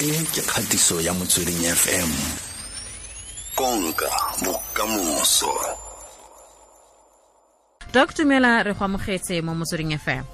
E ke kgatiso ya Motsweding FM. Konka bokamoso. Doc, dumela, re go amogetse mo Motsweding FM.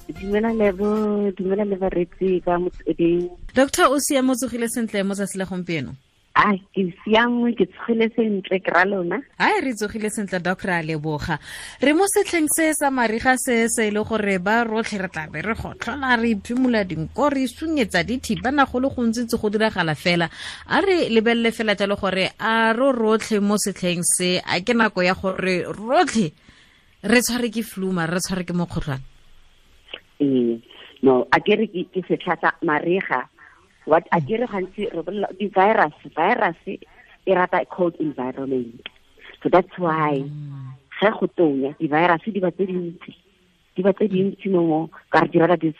Dumela Lebo, dumela le bareetsi ba Motsweding. Doctor, o siame, o tsogile sentle mo tsatsi la gompieno? A ke siame, ke tsogile sentle, ke ra lona. Ai, re tsogile sentle Doc, re a leboga. Re mo setlheng se sa mariga se se e le gore ba rotlhe re tla be re gotlhola, re iphimola dinko, re sunyetsa dithibana, go le gontsi tse go diragala fela. A re lebelele fela jalo gore a ro rotlhe mo setlheng se, a ke nako ya gore rotlhe re tshware ke flu, mara re tshware ke mokgotlhwane? Ee, no, a ke re ke setlha sa mariga. What a ke re gantsi re bolela di-virus, virus e rata cold environment. So that's why ge go tonya di-virus di ba tse dintsi, di ba tse dintsi mo mo, ka re di rata di,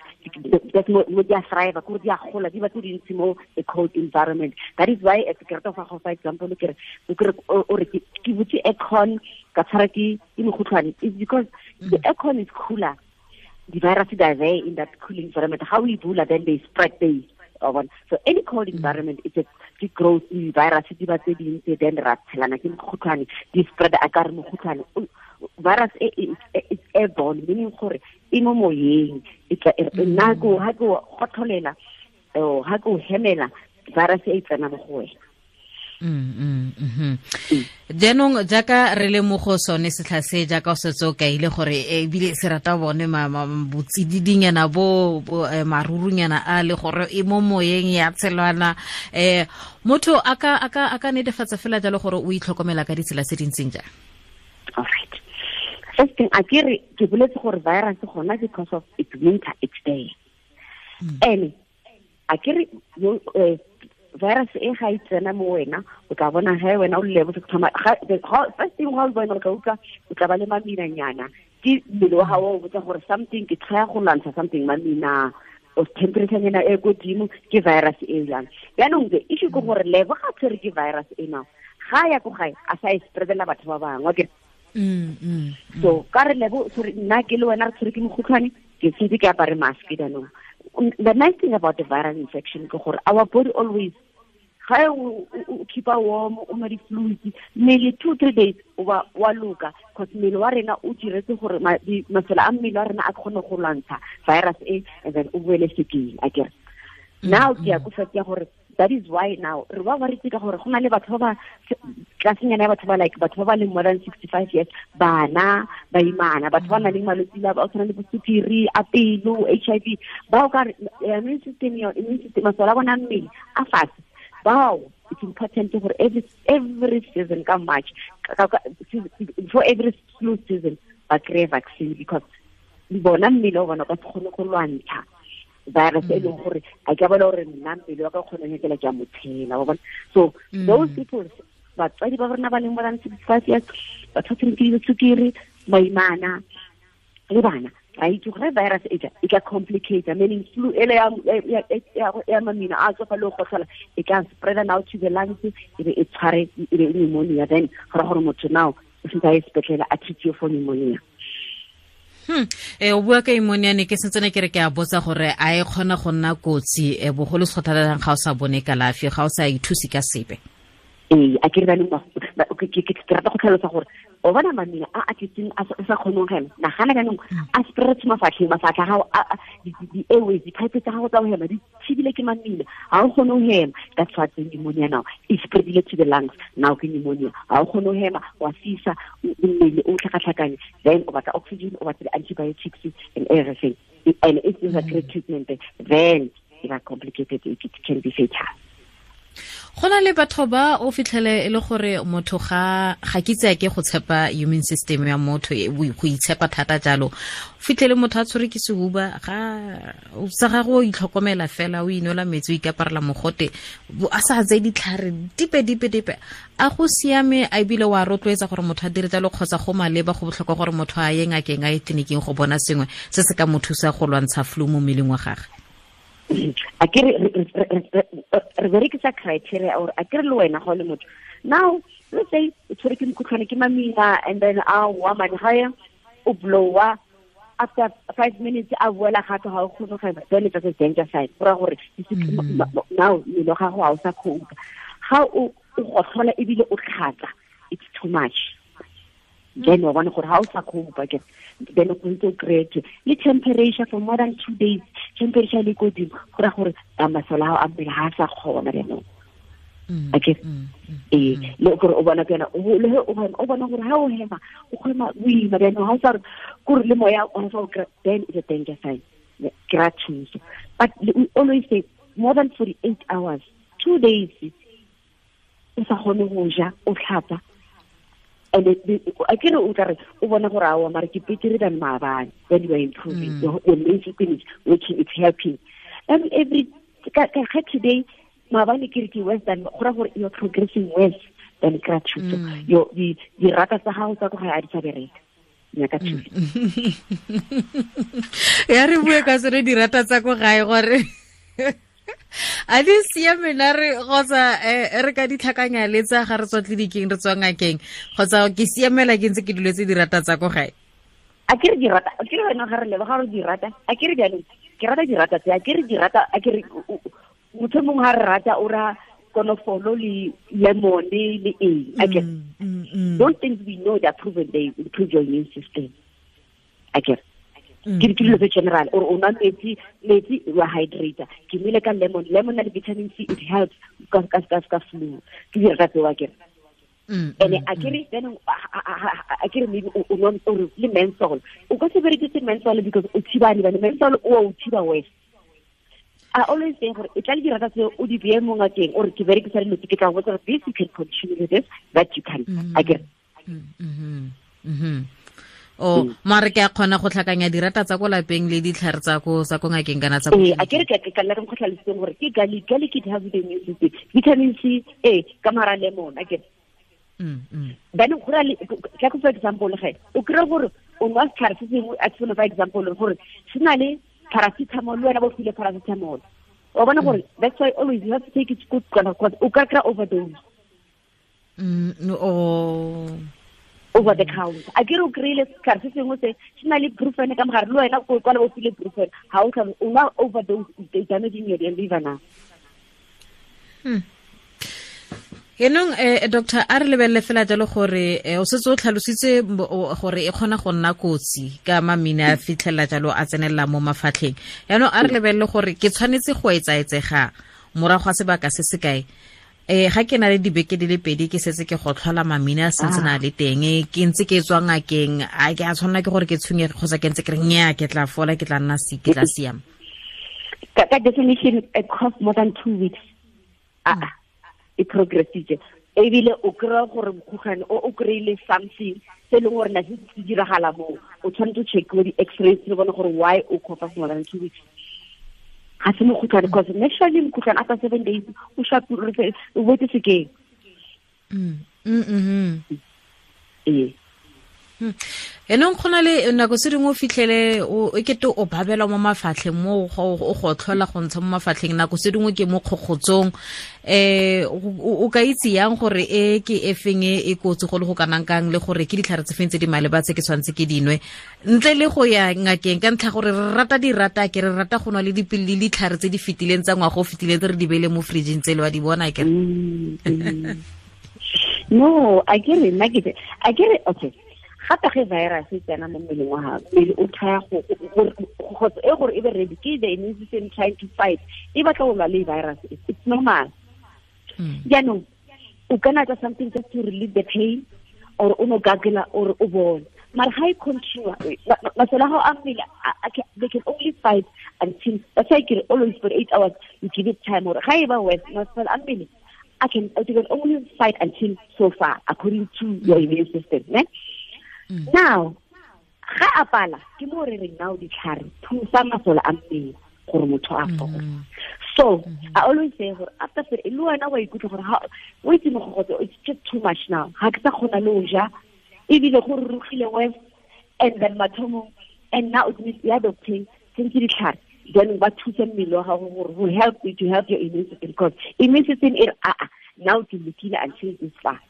that's mo, mo di a thrive, kore di a gola, di ba tse dintsi mo a cold environment. That is why ke rata go fa example, ke re, o kere, o, o re ke, ke butse aircon ka tshwara ke mokgotlhwane. It's because the aircon is cooler. The virus are there in that cooling environment. How we bula, then they spread they. So any cold environment, it's a growth virus, di ba tse dintsi, then ra tshelana ke mokgotlhwane, di spread a ka re mokgotlhwane. Virus e, e, e, it's airborne, meaning gore e mo moyeng, e tla, e, nna ko, ha ke o gotlholela, oh, ha ke o hemela, virus e tsena mo go wena. Jaanong jaaka re le mo go sone setlha se, jaaka o setse o kaile gore ebile se rata bone botsididinyana bo, bo marurunyana a le gore e mo moyeng ya tshelwana, motho a ka netefatsa fela jalo gore o itlhokomela ka ditsela tse di ntseng jang? All right. First thing, a ke re ke boletse gore virus gona because of it's winter, it's there. Ene a ke re yo, virus e ga e tsena mo wena, o tla bona ge wena o le bo thoma, ga, the, ga, first thing ga o bona o tla utlwa, o tla ba le maminanyana. Ke mmele wa gago o botsa gore something, ke try go lwantsha something, mamina, o temperature nyana e ko godimo, ke virus e jang. Jaanong the issue ke gore Lebo ga tshwere ke virus e now, ga ya ko gae, a sa e spreadela batho ba bangwe, akere? So ka re Lebo, sorry, nna ke le wena re tshwere ke mokgotlhwane, ke tshwere ke apare mask jaanong. The nice thing about the viral infection ke gore our body always, ga o keep a warm, o nwa di-fluids, mmele 2-3 days o ba wa loka, cause mmele wa rena o diretse gore masole a mmele wa rena a kgone go lwantsha virus e, and then o boele sekeng, akere. Now ke ya ko fact ya gore that is why now re ba ba re ka gore go na le batho ba ba tlasenyana ya batho ba like batho ba ba leng more than 65 years, bana, baimana, batho ba nang le malwetse a ba tshwana le bo sukiri, a pelo, HIV, ba o ka re, immune system ya, immune system, masole a bona mmele a fatshe. Bao, it's important gore every season ka March, ka, ka, for every flu season, ba kry-e vaccine, because bona mmele wa bona o ka se kgone go lwantsha virus e leng gore a ke bona gore nna mmele wa ka o kgona go nyakela ke a mo tshela, wa bona. So those people, batswadi ba rona ba leng more than 65 years, batho ba tshwereng ke disukiri, baimana le bana, ra itse gore virus e tla, e ka complicate, meaning flu ele ya mamina a tswa fa le go gotlhola, e ka spread now to the lungs, e be e tshware, e be pneumonia, then go ra gore motho now o sentse a ye sepetlele a treat for pneumonia. O bua ka pneumonia, ne ke sentse ne ke re ke a botsa gore a e kgona go nna kotsi, bogolo se thata ga o sa bone kalafi, ga o sa ithuse ka sepe. Ee, a ke re ba leng ba, ba, ke, ke, ke, ke rata go tlhalosa gore o bona mamina a a tletseng a sa kgoneng go hema, nagana jaanong a spread mafatlheng, mafatlha a gago, a, a, di, di, di airways, di-pipe tsa gago tsa go hema di thibile ke mamina, ga o kgone go hema. That's what the pneumonia now e spreadile to the lungs, now ke pneumonia, ga o kgone go hema, wa fisa mmele o tlhakatlhakane, then o batla oxygen, o batla di-antibiotics and everything, and if there's a great treatment, then it are complicated, it can be fatal. Go na le batho ba o fitlhele e le gore motho ga ke itse ke go tshepa immune system ya motho, go itshepa thata jalo. O fitlhele motho a tshwere ke sehuba, ga o sa gagwe o itlhokomela fela, o inwela metsi, o ikaparela mogote, a sa tseye ditlhare dipe, dipe, dipe. A go siame, a ebile wa rotloetsa gore motho a dire jalo kgotsa go maleba, go botlhokwa gore motho a ye ngakeng, a ye tleliniking go bona sengwe se se ka mo thusa go lwantsha flu mo mmeleng wa gagwe? A ke re, re, re, re, re, re berekisa criteria or a ke re le wena ga o le motho. Now, let's say o tshwere ke mokhutlhwane ke mamina, and then a wa mane ga ya, o blowa, After 5 minutes a boela gape, ga o kgone go hema, then it's a danger sign. Go raya gore now mmele wa gago ga o sa cope. Ga o gotlhola ebile o tlhatsa, it's too much. Then wa bona gore ga o sa cope ke then o ntse o kry-e le temperature for more than 2 days, temperature le kodimo, go raya gore masole a gago a mmele ga a sa kgona jaanong. Okay. Le gore o bona kana le o bona gore ha o hema o kgona boima jaanong ga o sa re kore le moya o sa o kry, then it's a danger sign. Kry thuso. But we always say more than 48 hours, 2 days o sa kgone go ja, o tlhapa. And a ke re o tla re o bona gore aowa mare ke betere than maabane, then you are improving. Your immune system is working, it's helping. And every ka today maabane ke re ke worse than, go raya gore you are progressing worse than kry thuso. Your dirata tsa gago tsa ko gae a di sa bereka. Nyaka thuso. Ya re bue ka tsone dirata tsa ko gae gore a di siame na re kgotsa re ka ditlhakanya le tsa ga re tswa tleliniking re tswa ngakeng, kgotsa ke siamela ke ntse ke duletse dirata tsa ko gae? A ke re dirata, a ke re wena ga re leba ga re dirata, a ke re jaanong ke rata dirata tse, a ke re dirata, a ke re motho mongwe ga re rata o ra konofolo le lemon le eng. A ke those things we know they are proven, they improve your immune system. A ke ke dilo tse general, or o nwa metsi, metsi wa hydrator, ke nwele ka lemon, lemon na le vitamin C, it helps ka flu. Ke dirata tseo a ke. And a ke re then a ke re maybe o nwa or le menthol, o ka se berekise menthol because o thibane bane menthol o thiba worse. I always say gore e tla le dirata tse o di beye mo ngakeng or ke berekisa dilo tse ke tla go botsa this, you can continue with this, that you can. A ke re. O mare ke a kgona go tlhakanya dirata tsa ko lapeng le ditlhare tsa ko ngakeng kana tsa ko. A ke re ke ka nna re mo tlhalositseng gore ke garlic, garlic it has the immune system, vitamin C ka mara lemon. A ke re. Then go ra le ka for example ge o kry gore o nwa setlhare se sengwe, a tshwane for example gore se na le paracetamol, le wena bo file paracetamol, wa bona gore that's why always you have to take it good because o ka kry overdose. Over the counter. A ke re o kry-ile setlhare se sengwe se se na le brufen ka mogare, le wena o kwala bo file brufen, ga o tlhalo o nwa overdose, it's damaging your liver now. Enong doctor, a re lebelele fela jalo gore o setse o tlhalositse gore e kgona go nna kotsi ka mamina a fitlhela jalo a tsenelela mo mafatlheng. Yaanong a re lebelele gore ke tshwanetse go etsaetsega morago ga sebaka se se kae. Ga ke na le dibeke di le pedi ke setse ke go tlhola mamina a sentse na le teng, ke ntse ke tswa ngakeng, a ke a tshwanela ke gore ke tshwenyege kgotsa ke ntse ke re nnyaa ke tla fola, ke tla nna ke tla siama? Ka definition it costs more than 2 weeks. E progressitse ebile o kry-a gore mokhutlhwane o kry-ile something se e leng gore na se se diragala moo, o tshwanetse o checkiwe di-x-rays le bone gore why o cough for more than 2 weeks. Ga se mokhutlhwane, because naturally mokhutlhwane after 7 days o shapile, o boetse sekeng. Ee. Enong go na le nako tse dingwe o fitlhele o ekete o babelwa mo mafatlheng mo o go tlhola go ntsha mo mafatlheng, nako tse dingwe ke mo kgokgotsong. O ka itse yang gore e ke e feng e kotsi go le go kanang kang, le gore ke ditlhare tse feng tse di maleba tse ke tshwanetse ke dinwe ntle le go ya ngakeng, ka ntlha gore re rata dirata, ke re rata go nwa le dipilisi le ditlhare tse di fetileng tsa ngwaga o fetileng tse re di beile mo fridging tse le wa di bona ke. No, a ke re nna ke a ke re okay. Gape ge virus e tsena mo mmeleng wa gago, mmele o try go e gore e be ready, ke the immune system trying to fight, e batla go lwa le virus, it's normal. Jaanong o kana tsa something just to relieve the pain, or o no gagela or o bone, mara ga e continue masole a gago a mmele they can only fight until, that's why ke re always for 8 hours you give it time, or ga e ba worse masole a mmele I can only fight until so far according to your immune system, ne? Now ga a pala ke mo re reng now ditlhare thusa masole a mmele gore motho a fole. So I always say gore after le wena wa ikutlwa gore o itse mogogotso, it's just too much now, ga ke sa kgona le go ja ebile go rurugile worse, and then mathomong, and now it means ya doctor tshwanetse ditlhare then ba thusa mmele wa gago gore go help you to help your immune system, because immune system e re now ke lokile until this far,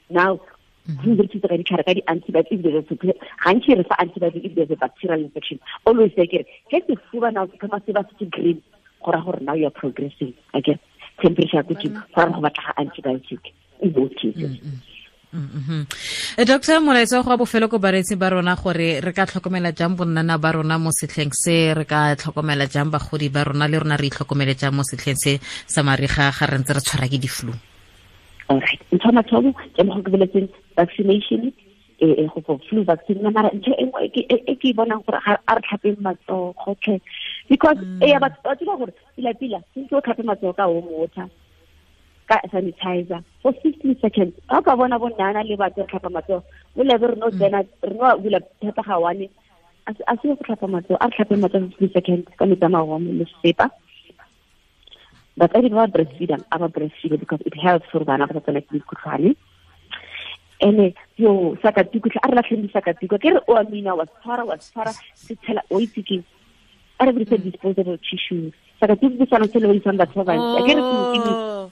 now Re thusa ka ditlhare ka di-antibiotic if there's a gantši re fa antibiotic if there's a bacterial infection. Always say kere ge sefuba now se thoma se ba se se green, go ra gore now you are progressing. Okay, temperature ko godimo, go ra go batla antibiotic in both cases. Doctor, molaetsa go bofelo ko bareetsi ba rona gore re ka tlhokomela jang bonnana ba rona mo setlheng se, re ka tlhokomela jang bagodi ba rona, le rona re itlhokomele jang mo setlheng se sa mariga ga re ntse re tshwara ke di-flu? Alright, ntho mathomo ke mo go ke boletseng vaccination e go for flu vaccine. Mara ntho e nngwe e ke bonang gore a re tlhapeng matsogo gotlhe, because e ya batho ba tseba gore pila pila sentse o tlhape matsogo ka warm water ka sanitizer for 15 seconds. Ga o ka bona bo nnana le batho re tlhapa matsogo mo lebe re no tsena re no bula thata ga one a se go tlhapa matsogo, a re tlhape matsogo 15 seconds ka metsi a mawarm le sesepa. Batsadi ba ba breastfeedang a ba breastfeed because it helps gore bana ba sa tsena ke mekhutlhwane. Ene yo sakatuku a re latlheng disakatuku, ke re o a mina wa tshwara se tshela o itse ke a re dirise disposable tissues. Sakatuku ke sone se le isang batho ba bantsi, a ke re ke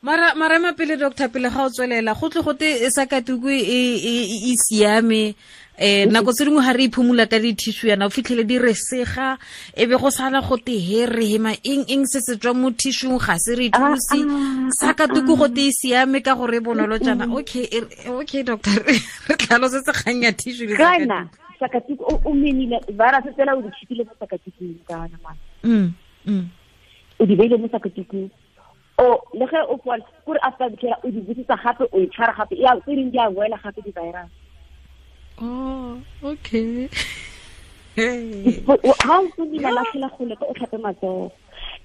mara ema pele doctor, pele ga o tswelela go tle gote sakatuku e siame. Nako tse dingwe ga re iphumula ka di-tissue yana o fitlhele di re sega, e be go sala gote he re hema eng se se tswa mo tissue ga se re thuse. Sakatuku gote e siame ka gore e bonolo jaana. Okay doctor, re tlhalosetse kgang ya tissue le sakatuku. Sakatuku o menile virus tsela o di tshipile mo sakatukung kana mama. O di beile mo sakatukung. O le ge o fola kore after the o di busetsa gape o e tshwara gape ya tse dingwe di a boela gape di-virus. Oh, okay. Ha o tsomile latlhela gole ka o tlhape matsogo.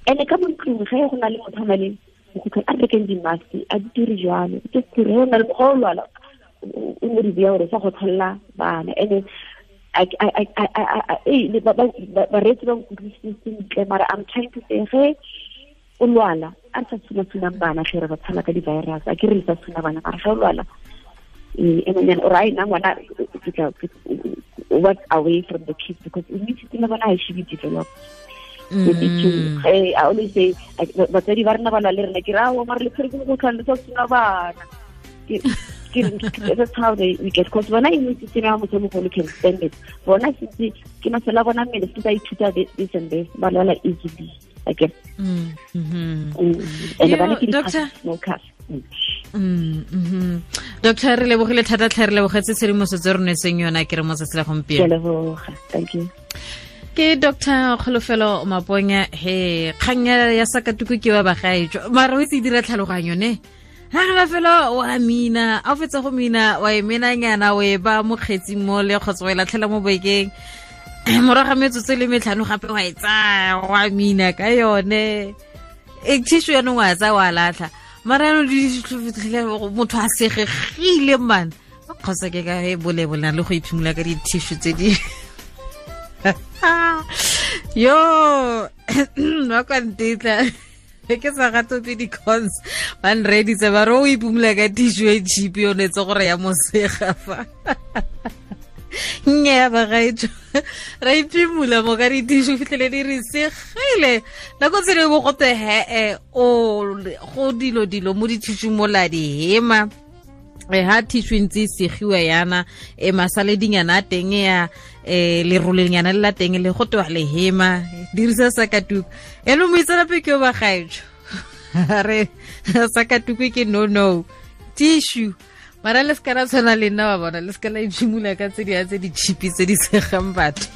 Ene ka mo ntlong ge go na le motho a na le mokhutlhwane a rekeng di-mask a di dire jalo. Just gore go na le go lwala o mo di beya gore sa go tlholela bana. Ene bareetsi ba nkutlwisitse sentle, mara I'm trying to say ge o lwala a re sa tshuna-tshunang bana ge re ba tshala ka di-virus, a ke re le sa tshuna bana, mara ge o lwala and right now ngwana work away from the kids because immune system ya bona ha e should be developed. I always say batsadi ba rena ba lwa le rena ke re aowa mara le tshwere ke mokgotlhwane le sa tshuna bana. That's how we get, because bona immune system ya motho mogolo can stand it. Bona sentse ke masole a bona mmele sentse a ithuta this and this, ba lwala easily. Okay. And bana ke di-smokers. Doctor, re lebogile thata tlhe, re lebogetse tshedimosetso re nwetseng yona ke re mo tsatsi la gompieno. Ke leboga, thank you. Ke Dr. Kholofelo Maponya. He kgang ya sakatuku ke ba bagaetso mara o itse dira tlhaloganyo ne ha re fela wa mina a fetsa go mina wa e menanyana o e ba mokgetsing mo le kgotsa wa e latlhela mo bekeng morago ga metsotso le metlhano gape wa e tsaya wa mina ka yone e tissue yanong wa tsaya wa latlha mara yanong motho a segegile man kgotsa ke ka e bolebola le go iphimola ka di-tissue tse di yo wa kwa ntetla ke sa gatope di-cons ba nreeditse ba re o iphimola ka tissue e cheap yone tse gore ya mosega fa nnyaa bagaetso ra iphimola mo ka di-tissue fitlhele di re segile nako tse dingwe gote he-e o go dilo mo di-tissue mola di hema ha tissue ntse e segiwa yana e masaledinyana a teng ya lerolenyana le la teng le go tewa le hema dirisa sakatuku eno moitseanape ke o bagaetso re sakatuku ke no tissue mara le seka la tshwana le nna wa bona le seka la iphimola ka tse di tse di cheap tse di segang batho.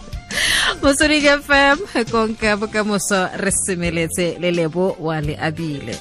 Motsweding FM konka bokamoso re semeletse le Lebo wa le abile.